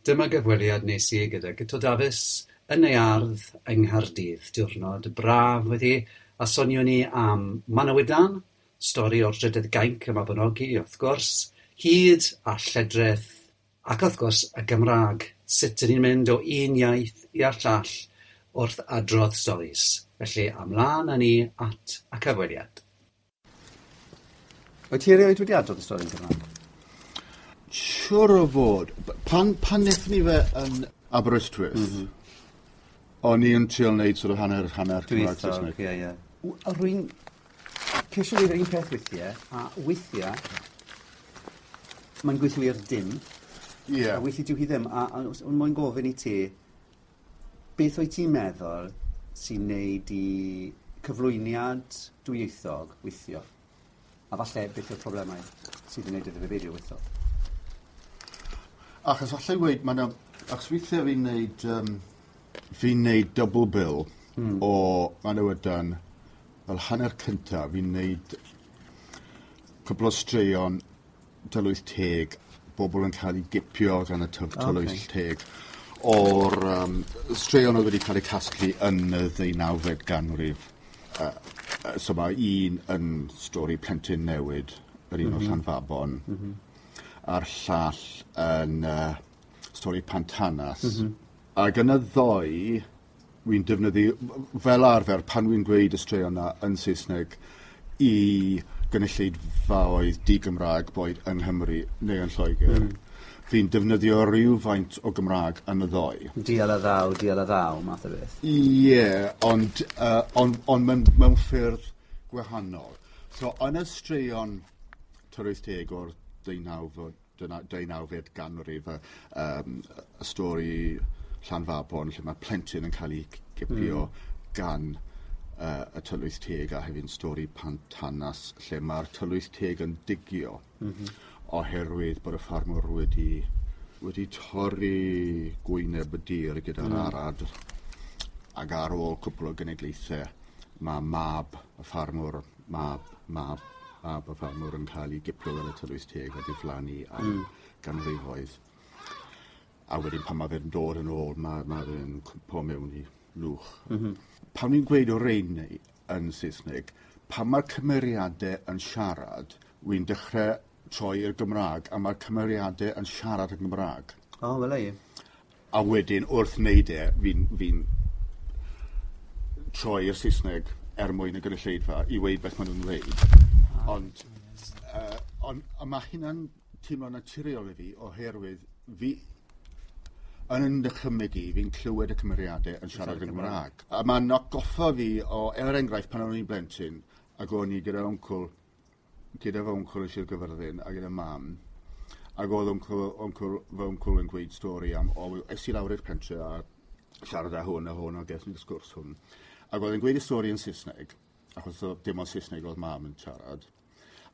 Dyma gyfweliad nes i gyda Guto Dafis yn ei ardd yng Nghaerdydd. Diwrnod braf wedi, a sonion ni am Manawydan, stori o'r Drydydd Gainc y Mabinogi, wrth gwrs, hud a lledrith, ac wrth gwrs y Gymraeg. Sut 'dyn ni'n mynd o un iaith i'r llall wrth adrodd storis. Felly, ymlaen â ni at y cyfweliad. Wyt ti erioed wedi adrodd y stori yn Gymraeg? Siwr o fod. Pan wnaethon ni fe yn Aberystwyth, o'n i yn trio wneud sort of hanner, hanner Cymraeg Saesneg. Ie, ie. Rwy'n ceisio gwneud yr un peth weithiau, a weithiau mae'n gweithio i'r dim. A weithiau dyw hi ddim. A o'n moyn gofyn i ti, beth wyt ti'n meddwl sy'n neud i cyflwyniad dwyieithog weithio? A falle beth yw'r problemau sydd yn neud iddo fe beidio weithio? Achos allai weud, ma' 'na... Achos weithiau fi'n neud double bill o Manawydan fel hanner cyntaf, fi'n neud cwpl o straeon tylwyth teg, bobl yn cael eu gipio gan y tylwyth teg, o'r straeon oedd wedi cael eu casglu yn y ddeunawfed ganrif. So mae un yn stori plentyn newid, yr un o Llanfabon, a'r llall yn stori Pantanas. Ac yn y ddoi, wy'n defnyddio, fel arfer, pan wy'n gweud y straeon yna yn Saesneg i gynulleidfaoedd di-Gymraeg, boed yng Nghymru neu yn Lloegr, fi'n defnyddio rhywfaint o Gymraeg yn y ddoi. Dial a ddaw, dial a ddaw, math o beth. Ie, yeah, ond mewn ffyrdd gwahanol. So, yn y straeon tylwyth teg o'r deunawfed ganrif, y stori Llanfabon, lle mae plentyn yn cael ei gipio gan y tylwyth teg, a hefyd stori Pantanas, lle mae'r tylwyth teg yn digio oherwydd bod y ffarmwr wedi torri gwyneb y dir gyda'r arad, ac ar ôl cwpl o genedlaethau mae mab y ffarmwr, mab, mab, mab y ffarmwr yn cael ei gipio gan y tylwyth teg a diflannu am ganrifoedd. A wedyn pan mae fe'n dod yn ôl, mae fe'n cwmpo mewn i lwch. Pan ni'n gweud o rein yn Saesneg, pan mae'r cymeriadau yn siarad, wy'n dechrau troi i'r Gymraeg, a mae'r cymeriadau yn siarad yn Gymraeg. O, wel ei. A wedyn, wrth wneud e, fi troi i'r Saesneg er mwyn y gynulleidfa i weud beth maen nhw'n dweud. Ond mae hynna'n teimlo naturiol i fi, oherwydd fi yn yn dychymyg i, fi'n clywed y cymeriadau yn siarad yn Gymraeg. A mae'n atgoffa fi o, er enghraifft, pan o'n i'n blentyn, ac o'n i gyda wncwl, gyda fy wncwl yn Sir Gyfyrddin a gyda mam, ac oedd fy wncwl yn gweud stori am, o, es i lawr i'r pentre a siarad â hwn a hwn a ges ni'r sgwrs hwn. Ac oedd e'n gweud y stori yn Saesneg, achos dim ond Saesneg oedd mam yn siarad.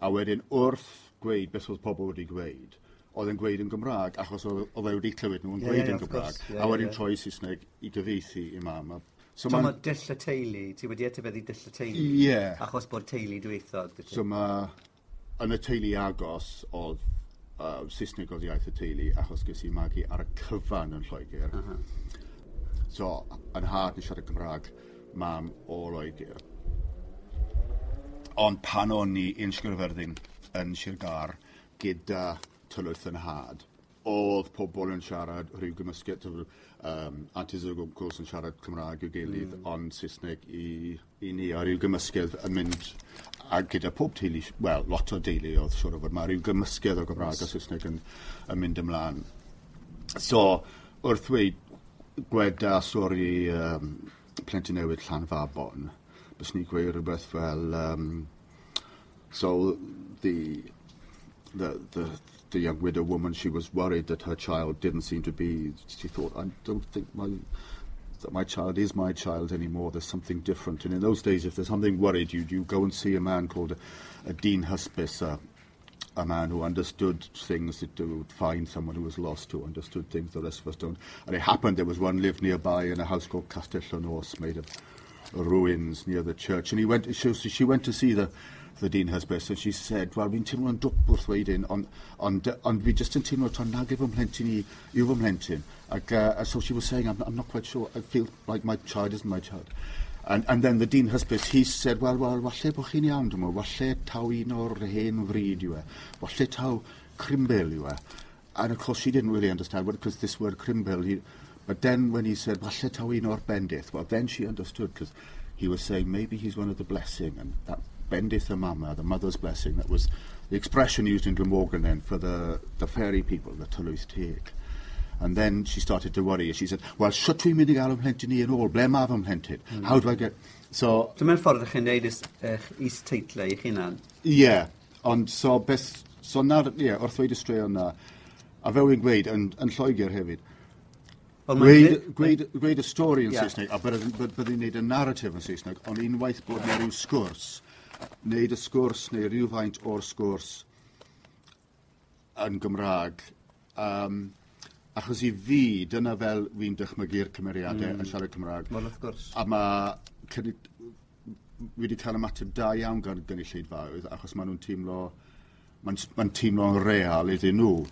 A wedyn wrth gweud beth oedd pobl wedi gweud, oedd e'n gweud yn Gymraeg, achos oedd e wedi clywed nhw'n gweud yn Gymraeg. A wedyn troi Saesneg i gyfieithu i mam. So mae dull y teulu, ti wedi etifeddu dull y teulu? Ie. Achos bod teulu dwyieithog, dy ti? So mae, yn y teulu agos, oedd Saesneg oedd iaith y teulu, achos ges i magu ar y cyfan yn Lloegr. So, yn nhad yn siarad Cymraeg, mam o Loegr. Ond pan o'n i yn Sir Gyfyrddin, yn Sir Gâr, gyda tylwyth yn nhad, oedd pobl yn siarad rhyw gymysgedd, aunties ag uncles yn siarad Cymraeg i'w gilydd, ond Saesneg i ni, a rhyw gymysgedd yn mynd, a gyda pob teulu, wel, lot o deulu oedd siŵr o fod, mae rhyw gymysgedd o Gymraeg a Saesneg yn mynd ymlaen. So, wrth ddweud gweda stori plentyn newydd Llanfabon, bys ni'n gweud rhywbeth fel, so the young widow woman, she was worried that her child didn't seem to be, she thought, I don't think that my child is my child anymore, there's something different. And in those days, if there's something worried you, you go and see a man called a Dyn Hysbys, a man who understood things, that would find someone who was lost, who understood things the rest of us don't. And it happened, there was one lived nearby in a house called Castell y Nos, made of ruins near the church. And she went to see the Dean Hysbys, and she said, "Well, fi'n teimlo'n dwp wrth weud hyn, ond fi just yn teimlo taw nag yw fy mhlentyn i yw fy mhlentyn." Ac, so she was saying, I'm not quite sure, I feel like my child isn't my child." And then the Dean Hysbys, he said, Well, walle bod chi'n iawn, dwi'n meddwl, walle taw un o'r hen fryd yw e, walle taw Crimbil yw e." And of course she didn't really understand what, because this word Crimbil, but then when he said, "Walle taw un o'r bendith," well, then she understood, because he was saying maybe he's one of the blessing, and that bendith y mama, the mother's blessing, that was the expression used in Glamorgan then for the fairy people, the Tylwyth Teg. And then she started to worry. She said, "Well, shwt dwi'n mynd i gael fy mhlentyn i yn ôl? Ble mae fy mhlentyn? How do I get?" So, Dyma'r ffordd ych chi'n neud eich is-teitlau eich hunan. Ie, yeah, ond so beth, so na'r, ie, yeah, wrth ddweud y straeon na, a fel wy'n gweud, yn Lloegr hefyd, Wel, mae'n gweud y stori yn Saesneg, a byddai'n neud y narrative yn Saesneg, ond unwaith bod yna rhyw sgwrs, neud y sgwrs neu rhywfaint o'r sgwrs yn Gymraeg, achos i fi, dyna fel fi'n dychmygu'r cymeriadau yn siarad Cymraeg. Wel, wrth gwrs. A fi wedi cael ymateb da iawn gan gynulleidfaoedd, achos maen nhw'n teimlo, mae'n teimlo'n real iddyn nhw.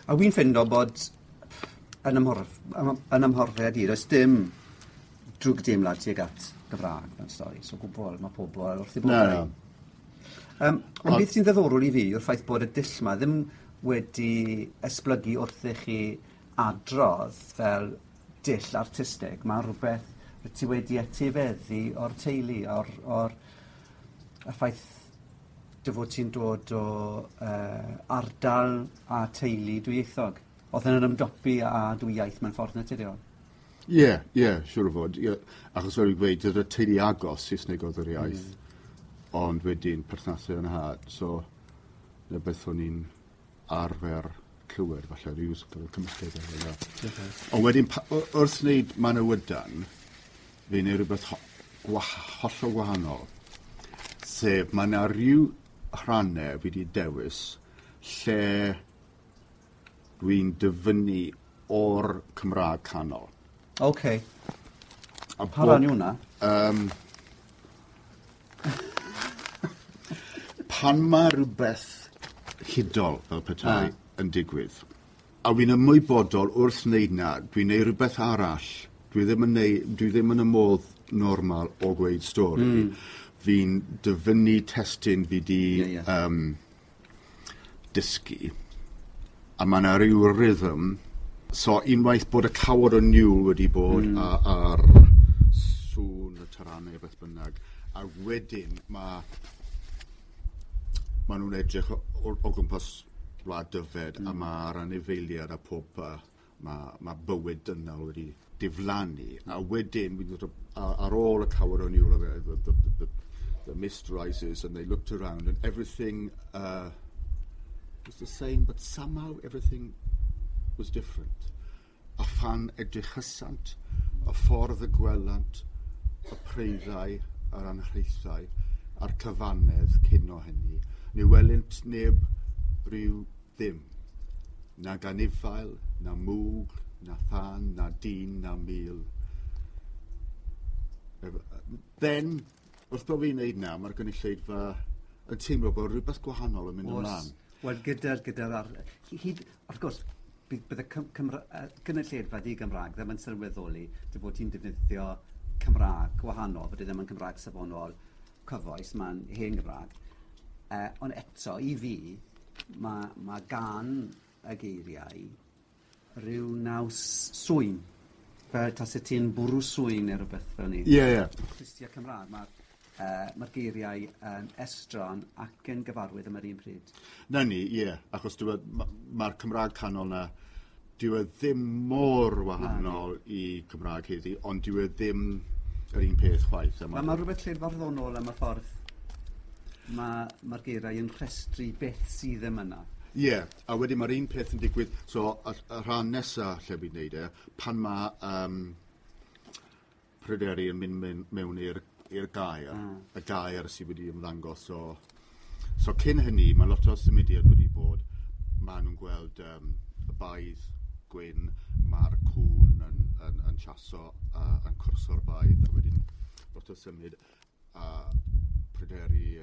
A wy'n ffindo bod yn ymhorfiad i, does dim drwg deimlad tuag at Gymraeg mewn stori. So gwbl, mae pobl wrth eu Na, boddau. na. Ond beth sy'n ddiddorol i fi yw'r ffaith bod y dull 'ma ddim wedi esblygu wrth i chi adrodd fel dull artistig. Mae rhywbeth rwyt ti wedi etifeddu o'r teulu, o'r y ffaith dy fod ti'n dod o ardal a teulu dwyieithog. Oedd yn ymdopi â dwy iaith mewn ffordd naturiol. Ie, siŵr o fod. Ie. Achos fel i'n gweud, gyda teulu agos Saesneg oedd yr iaith, ond wedyn perthnasau yn nhad, so na beth o'n i'n arfer clywed, falle, rhyw sort of cymysgedd efo hynna. Ond wedyn, wrth wneud Manawydan, fi'n neud rhywbeth hollol gwahanol. Sef, mae yna rhyw rhannau fi wedi dewis lle dwi'n dyfynnu o'r Cymraeg canol. OK. A Pa ran yw hwnna? Pan mae rhywbeth hudol fel petai yn digwydd, a fi'n ymwybodol wrth wneud na, dwi'n neud rhywbeth arall. Dwi ddim yn y modd normal o gweud stori. Fi'n dyfynnu testun fi di Ie, ie. Dysgu. A mae yna rhyw rhythm. So unwaith bod y cawod o niwl wedi bod a'r sŵn y taranau beth bynnag, a wedyn mae nhw'n edrych o gwmpas wlad Dyfed a mae'r anifeiliaid a pob mae bywyd dynol wedi diflannu a wedyn wy'n dod ar ôl y cawod o niwl the mist rises and they looked around and everything was the same, but somehow everything was different. A phan edrychasant, y ffordd y gwelant, y preiddau, yr anhraethau, a'r cyfannedd cyn o hynny, ni welynt neb rhyw ddim. Na ganifail, na mwg, na thân, na dyn, na mil. Then, wrth bod fi'n neud na, mae'r gynulleidfa yn teimlo bod rhywbeth gwahanol yn mynd ymlaen. Wel, gyda'r hyd, wrth gwrs, bydd y gynulleidfa di-Gymraeg ddim yn sylweddoli dy fod ti'n defnyddio Cymraeg gwahanol, bod e ddim yn Cymraeg safonol cyfoes, mae'n hen Gymraeg. Ond eto, i fi, mae gan y geiriau rhyw naws swyn. Fel tase ti'n bwrw swyn neu rhywbeth fel ni. Ie, ie. Clustia Cymraeg, mae'r geiriau yn estron ac yn gyfarwydd am yr un pryd. Na ni, ie. Achos mae'r Cymraeg canol na, dyw e ddim mor wahanol i Cymraeg heddi, ond dyw e ddim yr un peth chwaith. A Mae rhywbeth lled-farddonol am y ffordd mae'r geiriau yn rhestru beth sydd ddim yna. Ie, yeah, a wedyn mae'r un peth yn digwydd, so y rhan nesaf lle fi'n neud e, pan mae Pryderi yn mynd mewn i'r gaer, y gaer sydd wedi ymddangos o. So cyn hynny, mae lot o symudiad wedi bod, maen nhw'n gweld y baedd gwyn, mae'r cwn yn chaso, yn cwrso'r baedd, a wedyn lot o symud, a Pryderi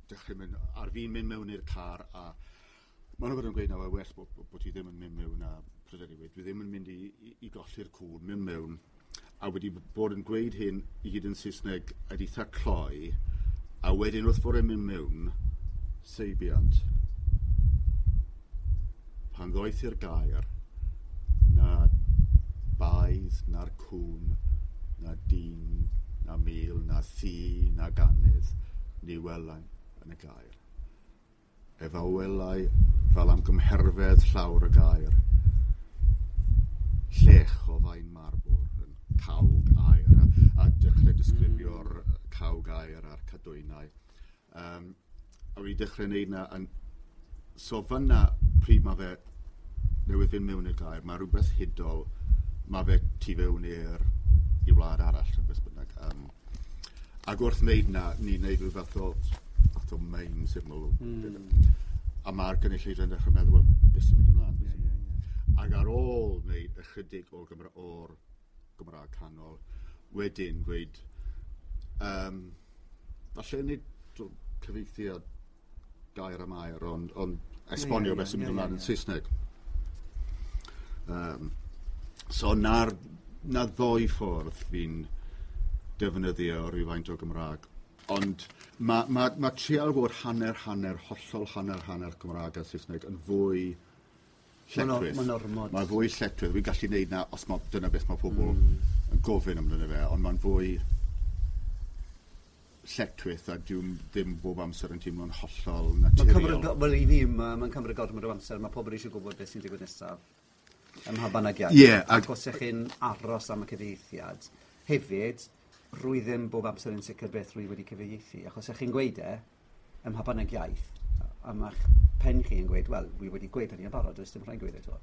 dechrau mynd, ar fi'n mynd mewn i'r car, a maen nhw yn gweud na, well bod ti ddim yn mynd mewn, a Pryderi wedi, dwi ddim yn mynd i golli'r cŵn, mynd mewn, a wedi bod yn gweud hyn i gyd yn Saesneg a eitha cloi, a wedyn wrth bod e'n mynd mewn, seibiant. Pan ddoeth i'r gair, na baedd, na'r cŵn, na dyn, na mil, na thŷ, na ganydd, ni welai yn y gair. Ef a welai fel am gymherfedd llawr y gair, llech o faen marbwr yn cawg aer, a dechrau disgrifio'r cawg aer a'r cadwynau. A wedi dechrau wneud na, so fyna pryd mae fe newydd fynd mewn i'r gair, mae rhywbeth hudol, mae fe tu fewn i wlad arall, rhywbeth bynnag. Ac wrth wneud na, ni'n wneud rhyw fath o main syml. A mae'r gynulleidfa'n dechrau meddwl, well, beth sy'n mynd ymlaen? Yeah, yeah, yeah. Ac ar ôl wneud ychydig o'r Gymraeg canol, wedyn gweud, falle nid cyfieithiad gair am air, ond esbonio beth sy'n mynd ymlaen yn Saesneg. So na ddoi ffordd fi'n defnyddio rhywfaint o Gymraeg. Ond mae trial bod hanner, hollol hanner Cymraeg a Saesneg yn fwy lletchwith. Mae'n ormod. Mae'n fwy lletchwith. Fi'n gallu neud na os dyna beth mae pobl yn gofyn amdano fe, ond mae'n fwy lletchwith a dwi'n ddim bob amser yn teimlo'n hollol naturiol. Wel, i fi, mae'n cymryd gormod o amser. Mae pobl eisiau gwybod beth sy'n digwydd nesaf ym mha bynnag iaith. Yeah, ac os ych chi'n aros am y cyfieithiad, hefyd, rwy ddim bob amser yn sicr beth rwy wedi cyfieithu, achos ych chi'n gweud ym mha bynnag iaith, a mae'ch pen chi yn gweud, wel, wi wedi gweud hynny yn barod, does dim rhaid gweud eto.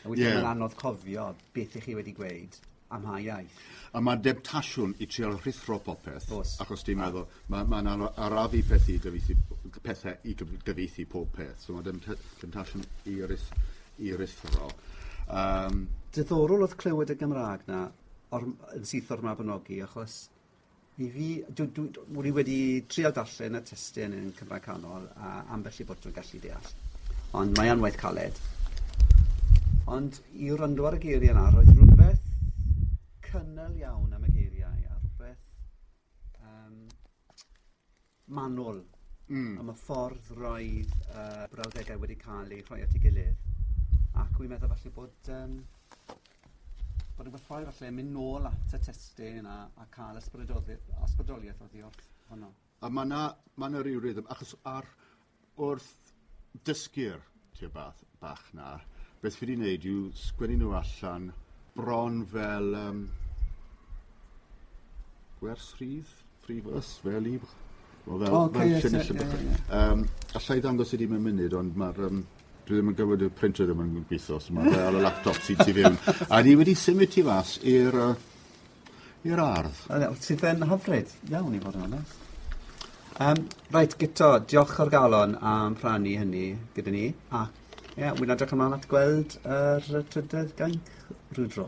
A wedyn mae'n anodd cofio beth ych chi wedi gweud am ha iaith. A mae demtasiwn i trial rhuthro popeth, achos ti'n meddwl, mae'n arafu pethau i gyfieithu pob peth, so mae demtasiwn i ruthro. Diddorol oedd clywed y Gymraeg na yn syth o'r Mabinogi, achos i fi, dwi wedi trial darllen y testun yn Cymraeg Canol a ambell i bod dwi'n gallu deall. Ond mae yn waith caled. Ond i wrando ar y geiriau yna, roedd rhywbeth cynnal iawn am y geiriau a rhywbeth manwl am y ffordd roedd brawddegau wedi cael eu rhoi at ei gilydd. Ac wy'n meddwl falle bod bod yn gwerthfawr falle mynd nôl at y testun a cael ysbrydoliaeth oddi wrth honno. A mae 'na ryw rhythm, achos wrth dysgu'r tua bach na, beth fi wedi wneud yw sgwennu nhw allan bron fel gwers rhydd, free verse, fel i... Alla i ddangos i di mewn munud, ond mae'r... dwi ddim yn gwybod y printer ddim yn gweithio, so mae fe ar y laptop sy'n tu fewn. A ni wedi symud tu fas i'r ardd. Sydd yn hyfryd iawn i fod yn onest. Reit, Guto, diolch o'r galon am rhannu hynny gyda ni. A ie, wy'n edrych ymlaen at gweld yr trydydd gainc rhyw dro.